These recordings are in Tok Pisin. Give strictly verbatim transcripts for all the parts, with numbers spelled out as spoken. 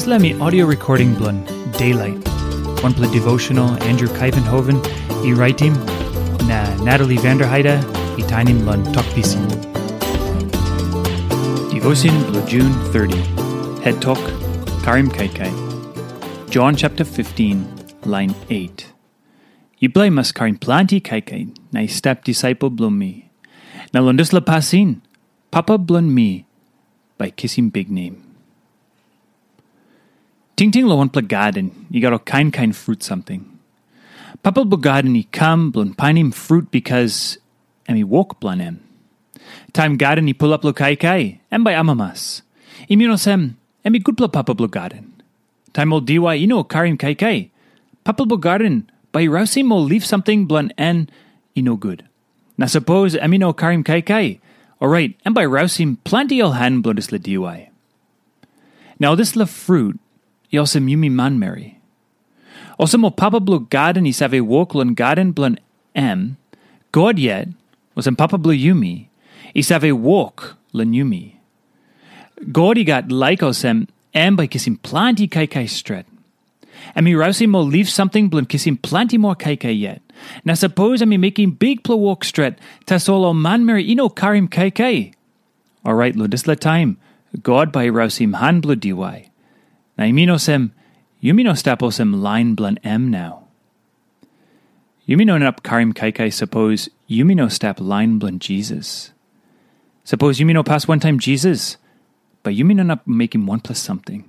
Dispela mi audio recording bilong Daylight, wanpela devotional Andrew Kaivenhoven i raitim, na Natalie Vanderheide i tainim long Tok Pisin. Devotion bilong June thirty, head tok, Karim Kaikai. John chapter fifteen, line eight. Yupela i mas karim planti kaikai na i stap disaipel bilong mi. Na long dispela pasin, Papa bilong mi bai kisim biknem. Tingting long wanpela gaden i gat ol kain kain frut samting. Papa bilong gaden i kam bilong painim frut bikas em i wok bilong em. Taim gaden i pulap long kaikai, em bai amamas. I min olsem, em i gutpela papa bilong gaden. Taim ol diwai i no karim kaikai, papa bilong gaden bai i rausim ol lip samting bilong en i no gut. Na sapos em i no karim kaikai, orait em bai rausim planti ol han bilong dispela diwai. Na ol dispela frut i olsem yumi manmeri. Olsem ol papa bilong gaden i save wok long gaden bilong em, God yet, olsem papa bilong yumi, i save wok long yumi. God i gat laik olsem em bai kisim planti kaikai stret. Em i rausim ol lip samting bilong kisim planti moa kaikai yet. Na sapos em i mekim bikpela wok stret, tasol ol manmeri i no karim kaikai, orait long dispela taim God bai i rausim han bilong diwai. Na i min olsem, yumi no stap olsem lain bilong em nau. Yumi no inap karim kaikai sapos yumi no stap lain bilong Jisas. Sapos yumi no pas wantaim Jisas, bai yumi no inap mekim wanpela samting.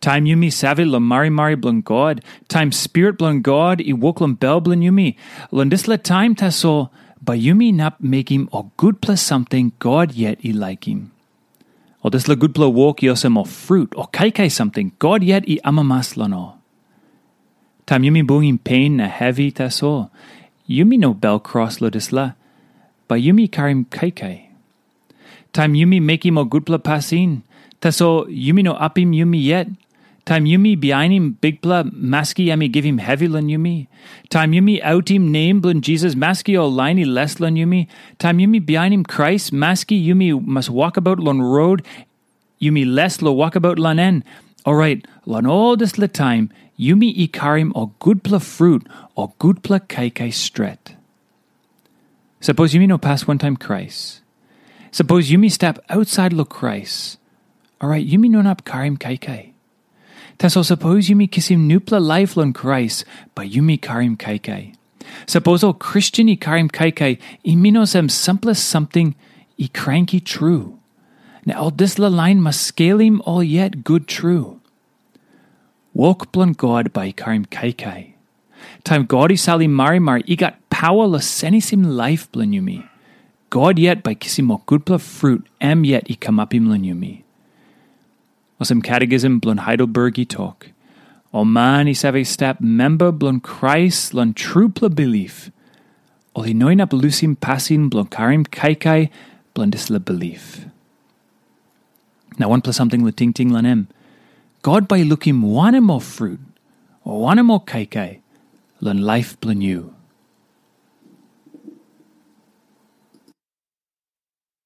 Taim yumi save long marimari bilong God, taim Spirit bilong God i wok long bel bilong yumi, long dispela taim tasol bai yumi inap mekim ol gutpela samting God yet i laikim. Ol dispela gutpela wok i olsem ol frut o kaikai samting God yet i amamas long ol. Taim yumi bungim pen na hevi tasol, yumi no bel kros long dispela, bai yumi karim kaikai. Taim yumi mekim ol gutpela pasin, tasol yumi no apim yumi yet. Taim yumi bihainim Bikpela, maski em i givim hevi long yumi. Taim yumi autim nem bilong Jisas, maski ol lain i les long yumi. Taim yumi bihainim Krais, maski yumi mas wokabaut long rot, yumi les long wokabaut long en. Orait, long ol dispela taim, yumi i karim ol gutpela frut, ol gutpela kaikai stret. Sapos yumi no pas wantaim Krais, sapos yumi stap ausait long Krais, orait yumi no inap karim kaikai. Tasol sapos yumi kisim nupela laip long Krais, bai yumi karim kaikai. Sapos ol Kristen i karim kaikai, i min olsem sampela samting i kranki tru. Na ol dispela lain mas skelim ol yet gut tru. Wok bilong God bai i karim kaikai. Taim God i salim marimari, i gat pawa long senisim laip bilong yumi. God yet bai kisim ol gutpela frut em yet i kamapim long yumi. Olsem Catechism bilong Heidelberg i tok, ol man i save stap memba bilong Krais long trupela bilip, ol i no inap lusim pasin bilong karim kaikai bilong dispela bilip. Na wanpela samting long tingting long em, God bai i lukim wanem ol frut, o wanem ol kaikai long laip bilong yu.